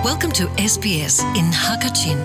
Welcome to SBS in Hakachin.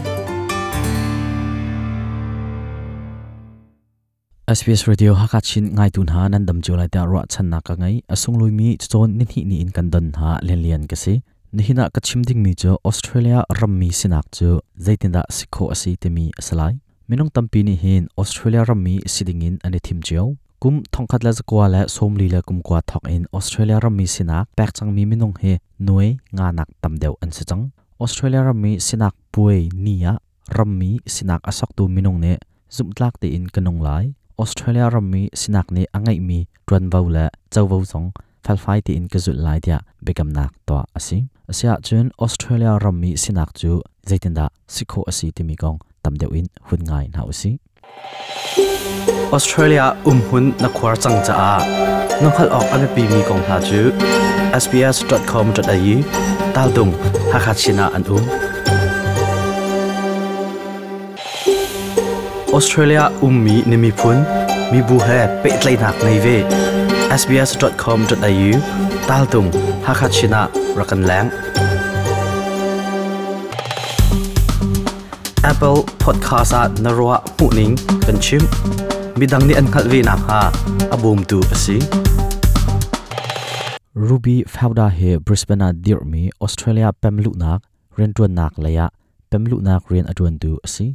SBS Radio Hakachin ngaitu hna nan dam cio lai tiah ruahchannak ka ngei. A sunglawi cacawn nihnih ni in kan don hna lianlian ka si. Nihin ah ka chim dingmi cu Australia rammi sinak cu zeitindah si khawh a si timi a si lai. Minung tampi nih hin Australia rammi si dingin an i thim cio. Kum 1949 thawk in Australia rammi sinak pek cangmi minung hi nuai nga nak tam deuh an si cang. Australia rammi sinak puai ni ah rammi sinak a soktu minung nih zumhtlak tein ka nung lai. Australia rammi sinak nih a ngeihmi ṭuanvo le covo zong felfai tein ka zulh lai tiah biakamnak tuah a si. Asiahcun Australia rammi sinak cu zeitindah si khawh a si timi kong tam deuh in hun ngai hna usih. Australia umhmun na khuar cang caah na hngalh awk a biapimi kong hna cu sbs.com.au taltung Hakha Chin ah an um. Australia ummi na miphun mibu he pehtlaihnak ngei ve. sbs.com.au taltung Hakha Chin ah rak kan leng. Apple Podcast ah na ruah hmuhning kan chim. Midang nih an hngalh ve nakhnga a bawmtu a si. Ruby Fauda hi Brisbane ah dirhmi Australia pemluhnak rianṭuannak lei ah pemluhnak rian a ṭuantu a si.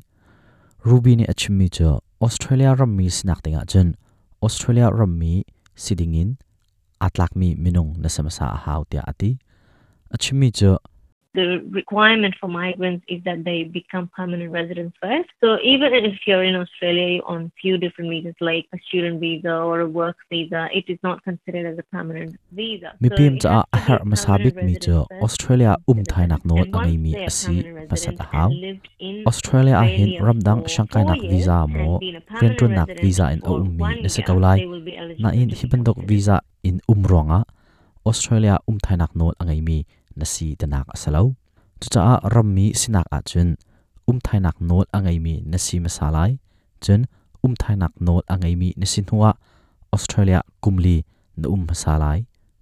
Ruby nih a chimmi cu Australia rammi sinak dingah cun Australia rammi si dingin aa tlakmi minung na si hmasa a hau tiah a ti. A chimmi cu The requirement for migrants is that they become permanent residents first. So even if you're in Australia on few different visas like a student visa or a work visa, it is not considered as a permanent visa. Mipim caah a herh hmasa bikmi cu Australia um thainak nawl a ngeimi a si hmasat a hau. Australia ah hin ramdang siangkainak visa maw rianṭuannak visa in a ummi na si ko lai. Nain hi bantuk visa in um ruangah Australia um thainak nawl a ngeimi na si tinak a si lo. Cucaah rammi sinak ahcun umthainak nawl a ngeimi na si hmasa lai. Cun umthainak nawl a ngeimi na si hnuah Australia kumli na um hmasa lai.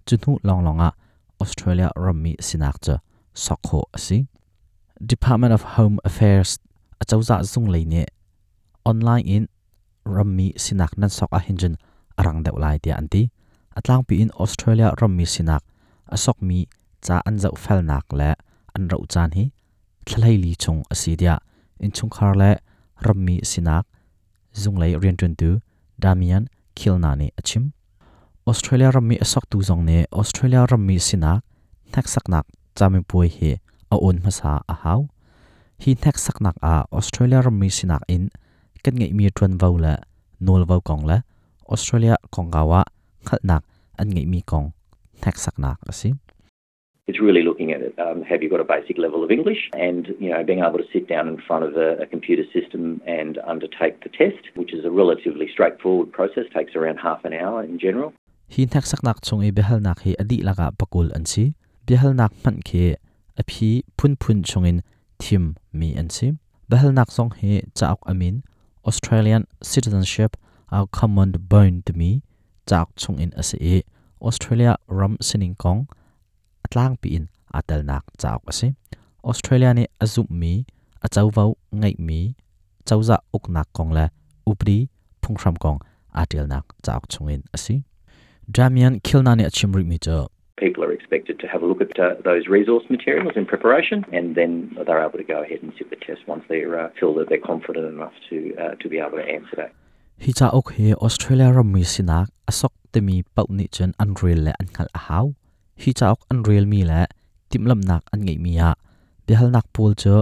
Cu hnu lawnglawng ah Australia rammi sinak cu sok khawh a si. Department of Home Affairs acozah zung lei nih online in rammi sinak nan sok ahhin cun a rang deuh lai tiah an ti. A tlangpi in Australia rammi sinak a sokmi ca an zohfelnak le an roh caan hi thla li chung a si tiah innchungkhar le rammi sinak zunglei rianṭuantu Damian Kilna nih a chim. Australia rammi a soktu zong nih Australia rammi sinak hneksaknak camipuai hi a awn hmasa a hau. Hi hneksaknak ah Australia rammi sinak in kan ngeihmi ṭuanvo le nawlvo kong le Australia kongkau ah hngalhnak an ngeihmi kong hneksaknak a si. It's really looking at it. Have you got a basic level of English and being able to sit down in front of a computer system and undertake the test, which is a relatively straightforward process, takes around half an hour in general. Hi hneksaknak chung i biahalnak hi a dihlak ah pakul an si. Biahalnak hmanh khi a phi phunphun chungin thim mi an si. Biahalnak zong hi cauk a min Australian Citizenship Our Common Bond timi cauk chungin a si i Australia ram sining kong a tlangpi in aa telnak cauk a si. Australia nih a zumhmi, a covo ngeihmi cozah uknak kong le upadi phunghram kong aa ṭialnak cauk chungin a si. Damian Kilna nih a chim rihmi cu People are expected to have a look at those resource materials in preparation and then they're able to go ahead and sit the test once they feel that they're confident enough to be able to answer that. Hi cauk hi Australia rammi sinak a sok timi paoh nih cun an rel le an hngalh a hau. Hi cauk an relmi le timhlamhnak an ngeihmi ah biahalnak pawl cu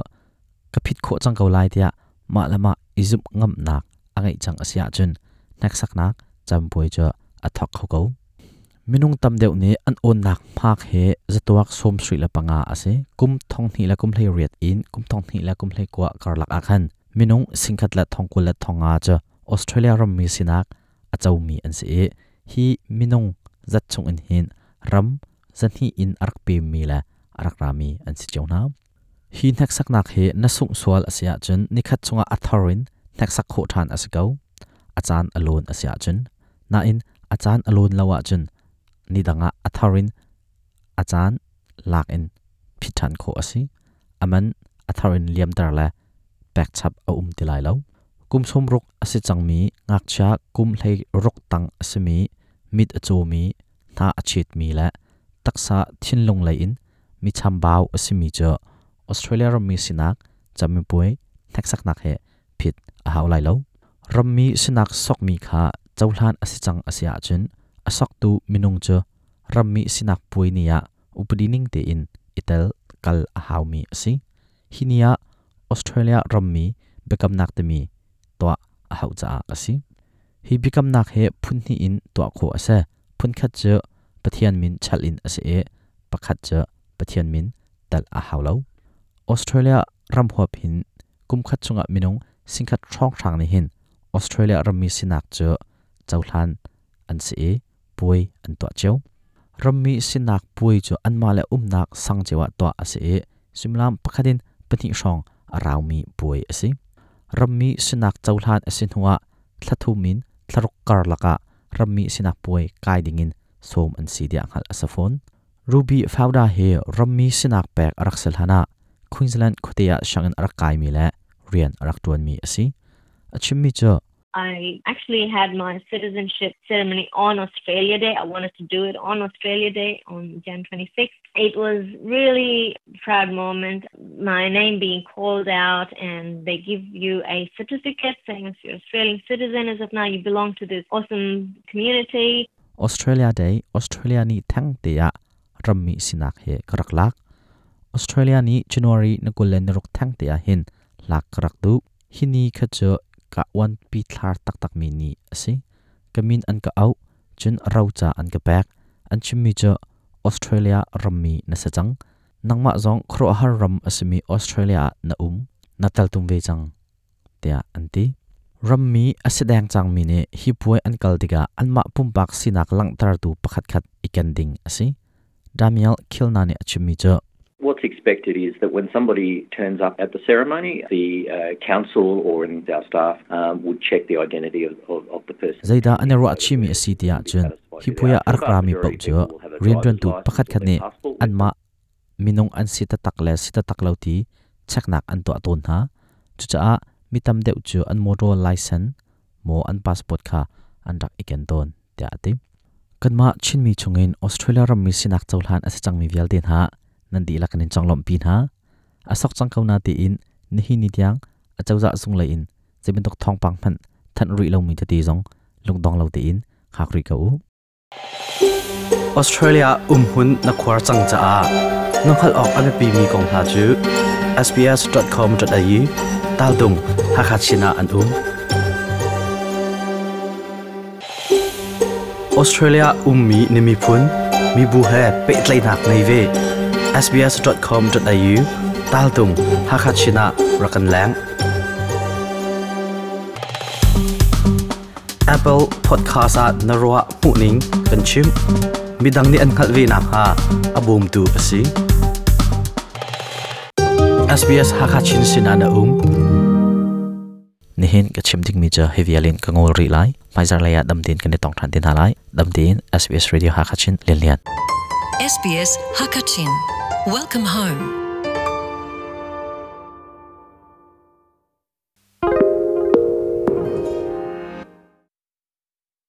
ka phit khawh cang ko lai tiah mah le mah i zumh ngamnak a ngeih cang a si ahcun hneksaknak campuai cu a thawk kho ko. Minung tam deuh nih an awnnak hmak hi zatuak 75 a si. Kum 2018 in kum 2019 karlak ah khan minung 1,095 cu Australia rammi sinak a comi an si i hi minung zat chung in hin ram zahnih in a rak pemmi le a rak rami an si cio hna. Hi hneksaknak hi na sungh sual a si ahcun nikhat chungah a thar in hneksak khawh ṭhan a si ko. A caan a lawn a si ahcun. Nain a caan a lawn lo ahcun ni dang ah a thar in a caan lak in phit ṭhan khawh a si. Aman a thar in liamter le pek chap a um ti lai lo. Kum 60 a si cangmi ngakchia, kum 16 tang a simi, mit a cawmi, hna a chetmi le taksa thinlung lei in mi chambau a simi cu Australia rammi sinak camipuai hneksaknak he phit a hau lai lo. Rammi sinak sokmi kha cohlan a si cang a si ahcun a soktu minung cu rammi sinak puai ni ah upadi ning tein i tel kal a haumi a si. Hi ni ah Australia rammi biakamnak timi tuah a hauh caah a si. Hi biakamnak hi phun hnih in tuah khawh a si. Phun khat cu Pathian min chalh in a si i pakhat cu Pathian min telh a hau lo. Australia ram huap hin kum khat chungah minung 10,000 hrawnghrang nih hin Australia rammi sinak cu cohlan an si i puai an tuah cio. Rammi sinak puai cu anmah le umnak sang cio ah tuah a si i suimilam pakhat in pahnih hrawng a raumi puai a si. Rammi sinak cohlan a si hnuah thla thum in thla ruk karlak ah rammi sinak puai kai dingin sawm an si tiah hngalh a si fawn. Ruby Fauda hi rammi sinak pek a rak si hlan ah Queensland khuate ah sianginn a rak kaimi le rian a rak ṭuanmi a si. A chimmi cu I actually had my citizenship ceremony on Australia Day. I wanted to do it on Australia Day on Jan 26. It was really proud moment. My name being called out and they give you a certificate saying if you're Australian citizen as of now you belong to this awesome community. Australia Day, Australia ni theng te ah rammi sinak he ka rak lak. Australia ni January na 26 theng te ah hin lak ka rak duh. Hi ni kha cu ka uanpi thlar taktakmi ni a si. Ka min an ka auh, cun roca an ka pek. An chimmi cu Australia rammi na si cang. Nangmah zong khuaruahhar ram a simi Australia ah na um, na teltum ve cang, tiah an ti. Rammi a si deng cangmi nih hi puai an kal tikah anmah pumpak sinak langhtertu pakhatkhat i ken ding a si. Damiel Kilna nih a chimmi cu What's expected is that when somebody turns up at the ceremony, the council or our staff would check the identity of the person. Zeidah an i ruahchihmi a si ti ahcun hi puai ah a rak rami paoh cu rianṭuantu pakhatkhat nih anmah minung an si taktak le si taktak lo ti cheknak an tuah tawn hna. Cucaah mi tam deuh cu an motor license maw an passport kha an rak i ken tawn, tiah a ti. Kanmah Chinmi chungin Australia rammi sinak cohlan a si cangmi vialte hna nan dihlak in conglawmhpi hna. A sok cang ko na tiin nihin ni tiang acozah zung lei in zei bantuk thawngpang hmanh thanh rih lomi tete zong lungdong lo tein hngak rih ko u. Australia umhmun na khuar cang caah na hngalh awk a biapimi kong hna cu sbs.com.au taltung Hakha Chin ah an um. Australia ummi na miphun, mibu he pehtlaihnak ngei ve. sbs.com.au taltung Hakha Chin ah rak kan leng. Apple Podcast ah na ruah hmuhning kan chim. Midang nih an hngalh ve nakhnga a bawmtu a si. SBS Hakha Chin sinah na um. Nihin ka chim dingmi cu hi vial in ka ngol rih lai. Hmaizar lei ah dam tein kan i tong ṭhan te hna lai. Dam tein SBS Radio Hakha Chin Lian Lian. SBS Hakachin. Welcome home.